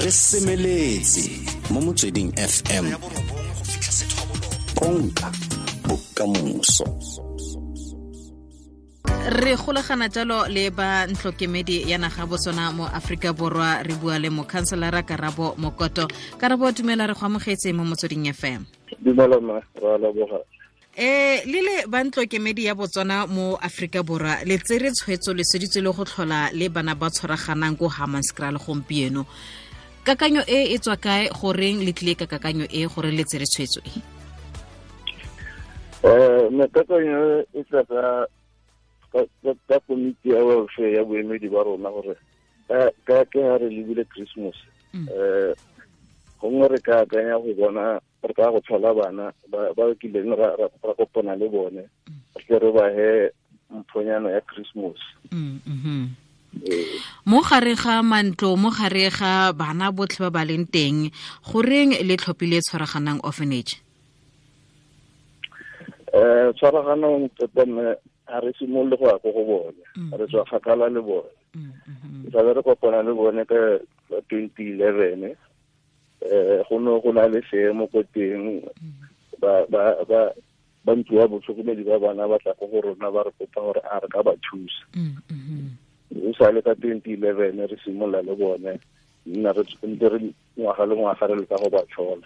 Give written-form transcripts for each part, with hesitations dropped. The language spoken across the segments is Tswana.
Re semeletse mo Motsweding FM, konka bokamoso. Re golagana jalo le ba ntlokemedi ya naga Botswana mo Aforika Borwa. Re bua le mokhanselara Karabo Mokoto. Karabo, dumela, re go amogetse mo Motsweding FM. Dumela ma, ra leboga. Le le ba ntlokemedi ya Botswana mo Aforika Borwa, le tsere tshwetso, le seditse le go tlhola le bana ba tshwaraganang ko Hammanskraal gompieno. Kakanyo e e tswa kae? Goreng le tlile ka kakanyo e, gore le tsere tshwetso e? Me kakanyo e tla ka komiti ya welfare ya boemedi ba rona, gore ka ke ha re lebile Christmas, gongwe re ka akanya go bona re ka go tlhola bana ba kileng ra kopana le bone, re tle re ba he mphonyana ya Christmas. Mo gare ga mantlo, mo gare ga bana botlhe ba ba leng teng, goreng le tlhophile Tshwaraganang Orphanage? Tshwaraganang tota mme ga re simolole go ya ko go bone, re tswa kgakala le bone. Tlabe re kopana le bone ka 2011. Go ne go na le seemo ko teng, ba ntlo ya botlhokomedi ba bana ba tla ko go rona, ba re kopa gore a re ka ba thusa. O sa le ka 2011 re simolola le bone, nna re ntse re ngwaga le ngwaga re leka go ba tlhola.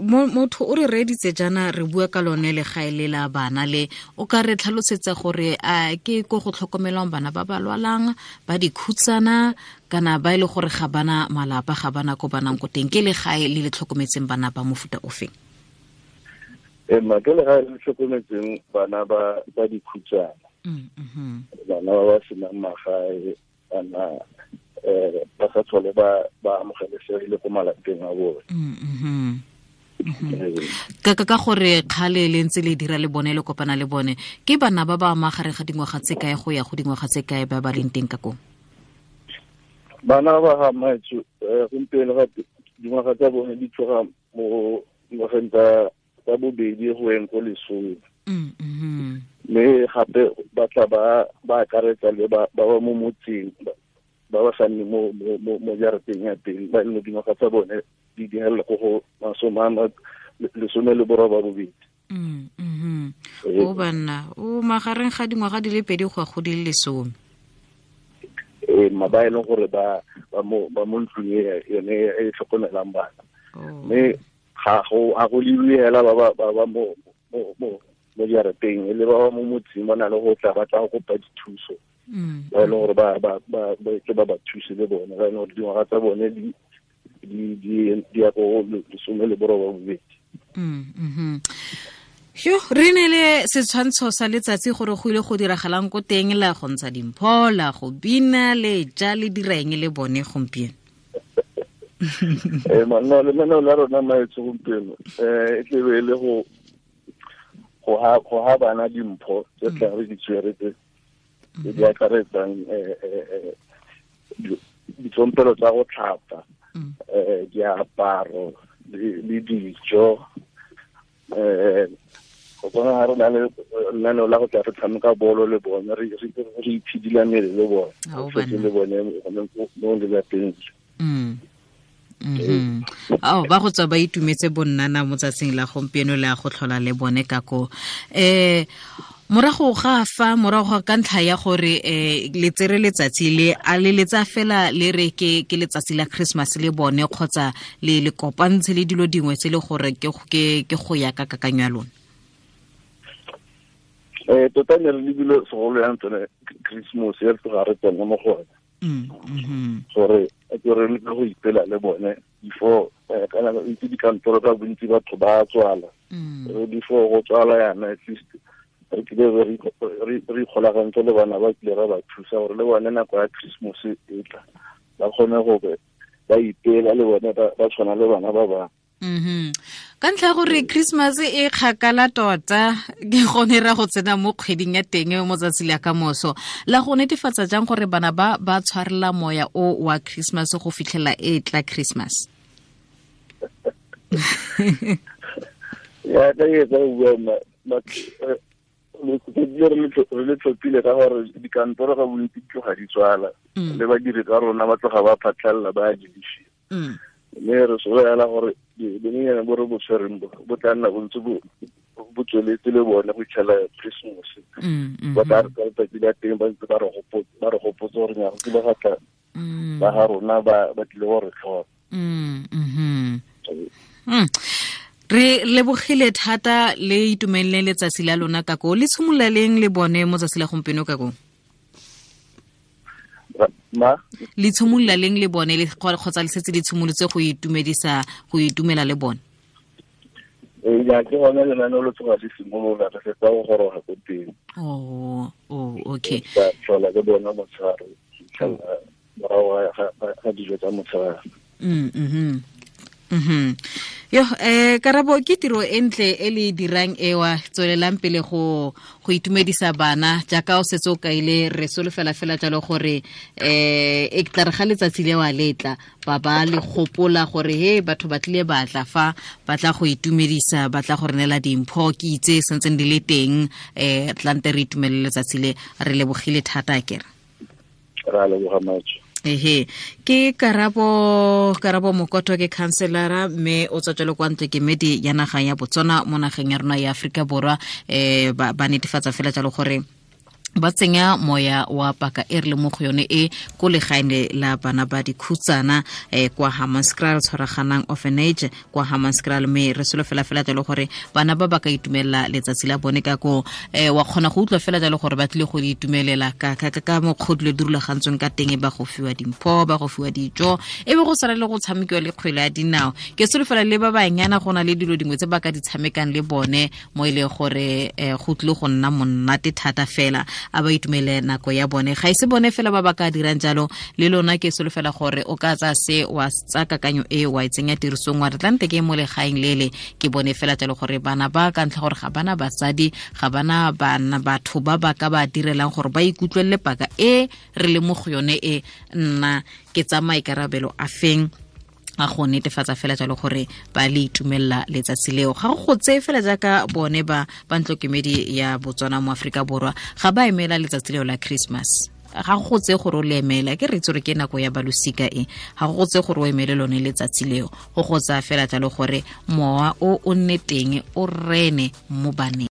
Motho o re reeditse jaana, re bua ka lone legae le la bana le, o ka re tlhalosetsa gore a ke ko go tlhokomelwang bana ba ba lwalang, ba dikhutsana, kana ba e le gore ga bana malapa, ga bana ko banang ko teng? Ke legae le le tlhokometseng bana ba mofuta ofeng? Ma ke legae le tlhokometseng bana ba dikhutsana, bana ba ba senang magae, bana ba sa tlhole ba amogelesegile ko malapeng a bone. Ka gore kgale le ntse le dira le bone, le kopana le bone, ke bana ba ba magareng ga dingwaga tse kae go ya go dingwaga tse kae ba ba leng teng ka koo? Bana ba ga maetso, gompieno ga dingwaga tsa bone di tloga mo dingwageng tsa bobedi go yeng ko 10. Mme gape ba tla ba akaretsa le ba ba mo motseng, ba ba sa nne mo jarateng ya teng, ba e leng dingwaga tsa bone di dihelela ko go 18. O banna o magareng ga dingwaga di le 2 go ya go di le 10. Ma ba e leng gore ba mo ntlong e yone e tlhokomelang bana. Mme ga go lebiwe hela ba mo jarateng, e le ba ba mo motseng ba na le go tla ba tla go kopa dithuso. Ba e leng gore ba thuse le bone, ba e leng gore dingwaga tsa bone di ya ko 18. Yo, re ne le setshwantsho sa letsatsi gore go ile go diragalang ko teng, la go ntsha dimpho, la go bina, le ja, le dira eng le bone gompieno? Manna, lenaneo la rona maetso gompieno, e tlebe e le go ha bana dimpho tse tla re di tshwere tse di akaretsang ditsompelo tsa go tlhapa, diaparo le dijo. Go bona ga re na le lenaneo la go tla re tshameka bolo le bone, re itshidila mmele le bone, re fetse le bone mo lelapeng. Ao, ba go tswa ba itumetse bonnana mo tsatsing la gompieno le a go tlhola le bone ka ko. Morago ga fa, morago ga ka ntlha ya gore le tsere letsatsi le, a le letsa fela le re ke letsatsi la Christmas le bone, kgotsa le kopantshe le dilo dingwe tse le gore ke go ya ka kakanyo ya lona? Tota ne re lebile segolo yang tsone Christmas e re tloga re tsena mo go yone. Gore ke re leke go ipela le bone before, kana itse dikantoro ka bontsi batho ba tswala. Before go tswala yana, at least re kile re ikgolagantse le bana ba kile ra ba thusa gore le bone nako ya Christmas e tla ba kgone gore ba ipela le bone, ba tshwana le bana ba bangwe. Ka ntlha ya gore Christmas e kgakala tota, ke gone ra go tsena mo kgweding ya teng mo tsatsi la ka moso, la go netefatsa jang gore bana ba tshwarela moya o wa Christmas go fitlhela e tla Christmas? Ya ka e tsa bua ma, Re le tlhophile ka gore dikantoro ga bontsi di tloga di tswala, le badiri ka rona ba tloga ba phatlhalela ba dishi. Mme re solofela gore bonyenyane bo re bo tshwereng bo tla nna bontse bo tsweletse le bone go itlhela Christmas. Ba tla re ka letsatsi la teng ba ntse ba re gopotse gore nyago ke ba gatla ba ga rona ba tlile go re tlhola. Re lebogile thata, le itumelele letsatsi la lona ka ko le tshimolola leng le bone mo tsatsi la gompieno ka ko? Ma? Le tshimolola leng le bone le kgotsa le setse le tshimolotse go itumedisa go itumela le bone? Ya ke gone lenaneo le tloga le simolola, re fetsa go goroga ko teng. Oh, okay. Ka tlhola ke bona motshegare morago ga dijo tsa motshegare. Yo, Karabo, ke tiro e ntle e le dirang ewa, tswelelang pele go itumedisa bana jaaka o setse o kaile. Re solofela fela jalo gore e tla re ga letsatsi le wa letla ba le gopola gore he batho ba tlile ba tla fa ba tla go itumedisa, ba tla go re neela dimpho, ke itse sentseng di le teng, tlante re itumelele letsatsi le. Re lebogile thata akere. Ra leboga matso. Ehe, ke Karabo Mokoto, ke councilora mme o tswa jalo kwa ntlo kemedi ya naga ya Botswana mo nageng ya rona ya Afrika Borwa. Ba netefatsa fela jalo gore ba tsenya moya wa paka e re le mo go yone e ko legaeng la bana ba dikhutsana kwa Hammanskraal, tshwaraganang orphanage kwa Hammanskraal. Mme re solofela fela jalo gore bana ba ba ka itumelela letsatsi la bone ka ko. Wa kgona go utlwa fela jalo gore ba tlile go itumelela ka mokgwa dilo di rulagantsweng ka teng, ba go fiwa dimpho, ba go fiwa dijo, e be go sala le go tshamekiwa le kgwele ya dinao. Ke solofela le ba banyana go na le dilo dingwe tse ba ka di tshamekang le bone mo e leng gore go tlile go nna monate thata fela. A ba itumele nako ya bone, ga ise bone fela ba ba ka dirang jalo, le lona ke solofela gore o ka tsa se wa tsa kakanyo e wa e tsenya tirisong, wa re tlante ke mo legaeng lele ke bone fela jalo gore bana ba ka ntlha gore ga bana batsadi, ga bana bana batho ba ba ka ba direlang gore ba ikutlwelele paka e re le mo go yone e. Nna ke tsa maikarabelo a feng a go netefatsa fela jalo gore ba le itumelela letsatsi leo. Ga go tseye fela jaaka bone ba ntlokemedi ya Botswana mo Afrika Borwa ga ba emela letsatsi leo la Christmas, ga go tseye gore o le emela, ke re itse gore ke nako ya balosika e, ga go tseye gore o emele lone letsatsi leo, go go tsaya fela jalo gore mowa o nne teng o rene mo baneng.